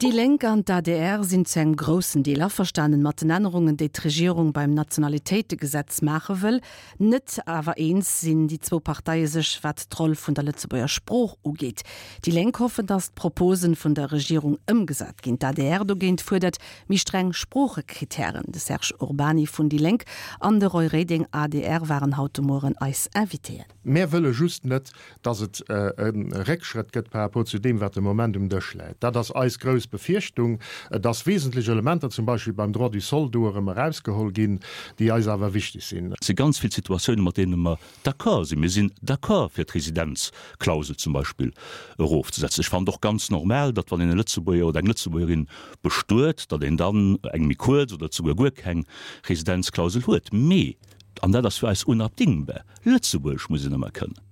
Déi Lénk an d'ADR sinn zu engem groussen Deel averstanen mat den Ännerungen, déi d'Regierung beim Nationalitéitegesetz maache wëll. Net awer eens sinn déi zwou Parteie sech, wat d'Roll vun der Lëtzebuerger Sprooch ugeet. Déi Lénk hoffen, datt d'Proposen vun der Regierung ëmgesat ginn. D'ADR dogéint fuerdert méi streng Sproochekrittären. De Serge Urbany vun déi Lénk an de Roy Reding, adr, waren haut de Mueren eis Invitéen. Mär wëlle just net, dass et e Réckschrëtt gëtt par rapport zu deem, wat de Moment um Dësch läit. Dat ass eis grouss Befierchtung, dass wesentlech Elementer, zum Beispill beim Droit du sol, do erëm erausgeholl ginn, déi eis awer wichteg sinn. Et si ganz vill Situatiounen, mat deene mer d'accord sinn. Mir sinn d'accord, fir d'Residenzklausel zum Beispill erofzesetzen. Ech fannen et och ganz normal, datt, wann een e Lëtzebuerger oder eng Lëtzebuergerin bestuet, datt een dann eng méi kuerz oder souguer guer keng Residenzklausel huet. Mee, an dat ass fir eis unabdingbar, Lëtzebuergesch muss een ëmmer kënnen.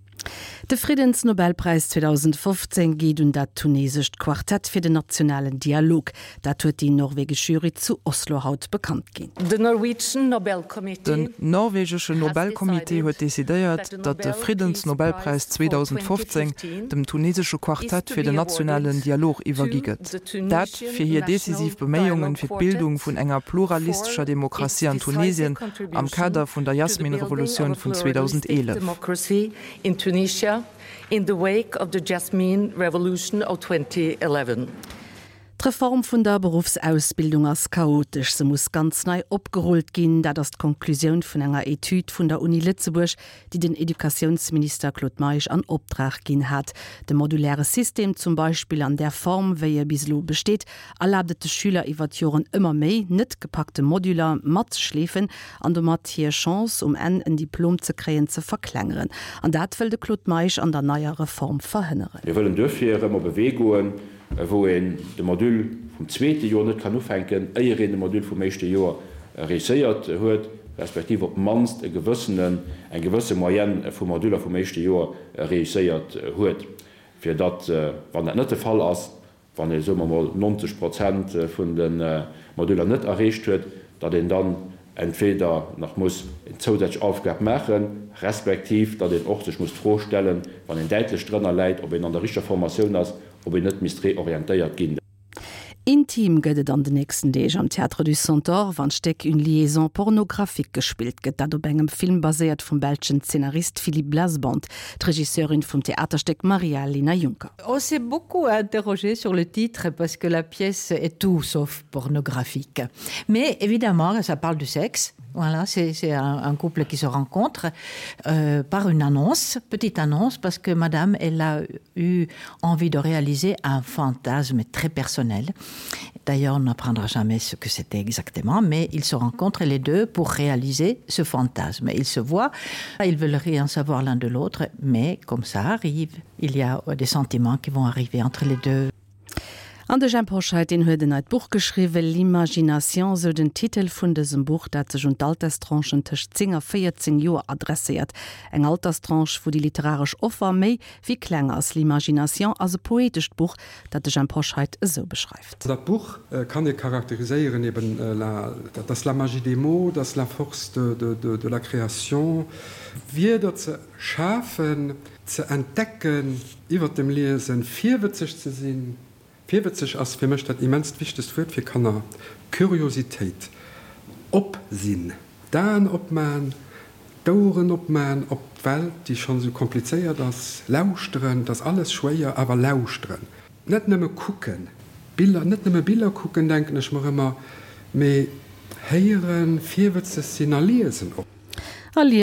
De Friddensnobelpräis 2015 geet un dat tunesescht Quartett fir den nationalen Dialog. Dat huet déi norwegesch Jury zu Oslo haut bekannt ginn. Den norwegeschen Nobelcomité huet decidéiert, datt de Friddensnobelpräis 2015 dem tunesesche Quartett fir den nationalen Dialog iwwergi gëtt. Dat fir hir decisiv Beméiungen fir d'Bildung vun enger pluralistescher Demokratie an Tunesien am Kader vun der Jasmin-Revolutioun vun 2011. In Tunisia in the wake of the Jasmine Revolution of 2011. D'Reform vun der Beruffsausbildung ass chaotesch, se muss ganz nei opgerullt ginn. Dat ass d'Konklusioun vun enger Etüd vun der Uni Lëtzebuerg, déi den Educatiounsminister Claude Meisch an Optrag ginn hat. De moduläre System zum Beispill an där Form, wéi e bis elo besteet, erlaabt et de Schüler iwwer d'Joren ëmmer méi net gepackte Moduler matzeschleefen an domat hir Chance, um Enn en Diplom ze kréien, ze verklengeren. An dat wëll de Claude Meisch an der neier Reform verhënneren. Mir wëllen duerfir erëm op e Wee goen, wou een de Module vum zweete Joer net kann ufänken, éier een de Module vum éischte Joer réusséiert huet, respektiv op d'mannst e gewëssenen, eng gewësse Moyenne vu Moduler vum éischte Joer réusséiert huet, fir datt, wann dat net de Fall ass, wann ee, soe mer emol, 90 Prozent vun de Moduler net erreecht huet, datt een dann entweder nach muss eng zousätzlech Aufgab maachen, respektiv datt een och sech muss d'Fro stellen, wann een däitlech drënner läit, ob een an der richteger Formatioun ass, ob een net misst reorientéiert ginn. Intim gëtt et an den nächsten Deeg am Théâtre du Centaure, wann d'Stéck Une liaison pornographique gespillt gëtt, dat op engem Film baséiert vum belschen Zeenarist Philippe Blasband. D'Regisseurin vum Theaterstéck Maria-Lena Juncker. On s'est beaucoup interrogé sur le titre parce que la pièce est tout sauf pornographique. Mais évidemment, ça parle du sexe. Voilà, c'est un, un couple qui se rencontre euh, par une annonce, petite annonce, parce que madame, elle a eu envie de réaliser un fantasme très personnel. D'ailleurs, on n'apprendra jamais ce que c'était exactement, mais ils se rencontrent les deux pour réaliser ce fantasme. Ils se voient, ils veulent rien savoir l'un de l'autre, mais comme ça arrive, il y a des sentiments qui vont arriver entre les deux. An de Jhemp Hoscheit, deen huet en neit Buch geschriwwen, L'Imagination, sou den Titel vun dësem Buch, dat sech un d'Alterstranchen tëscht 10 a 14 Joer adresséiert. Eng Alterstranche, wou déi literaresch Offer méi wéi kleng ass. L'Imagination ass e poetescht Buch, dat de Jhemp Hoscheit esou beschreift. Dat Buch kann ee charakteriséieren eben, dat ass la magie des mots, dat ass la force de la création, Wierder ze schafen, ze entdecken, iwwert dem Liesen, virwëtzeg ze sinn. Virwëtzeg ass fir mech dat immenst wichtegst Wuert fir Kanner. Curiositéit. Op sinn. D'Aen opman, d'Oueren opman op d'Welt, déi schonn esou komplizéiert ass. Lauschteren, et ass alles schwéier, awer lauschteren. Net nëmme kucken, Biller, net nëmme Biller kucken, denken ech mer ëmmer, mee héieren, virwëtzeg sinn a liesen och. A.